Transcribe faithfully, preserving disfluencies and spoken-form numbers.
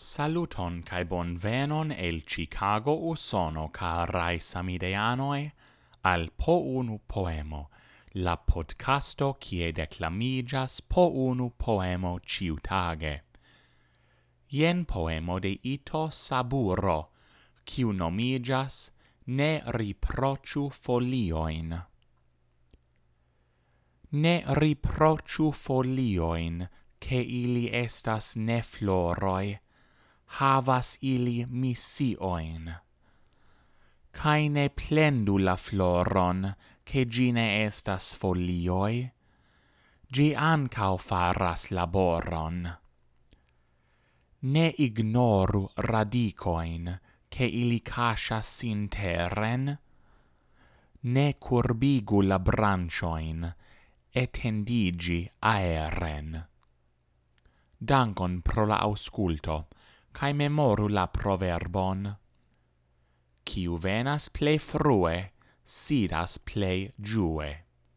Saluton kaj bonvenon el Chicago, Usono, karaj samideanoj, al Po Unu Poemo, la podcasto kie deklamiĝas po unu poemo ĉiutage. Jen poemo de Ito Saburo, kiu nomiĝas Ne riproĉu foliojn. Ne riproĉu foliojn, ke ili estas ne floroj, havas ili misiojn. Kaj ne plendu la floron, ke ĝi ne estas folioj, ĝi ankaŭ faras laboron. Ne ignoru radikojn, ke ili kaŝas sin teren, ne kurbigu la branĉojn, etendiĝi aeren. Dankon pro la aŭskulto, kaj memoru la proverbon: Kiu venas plej frue, sidas plej ĝue.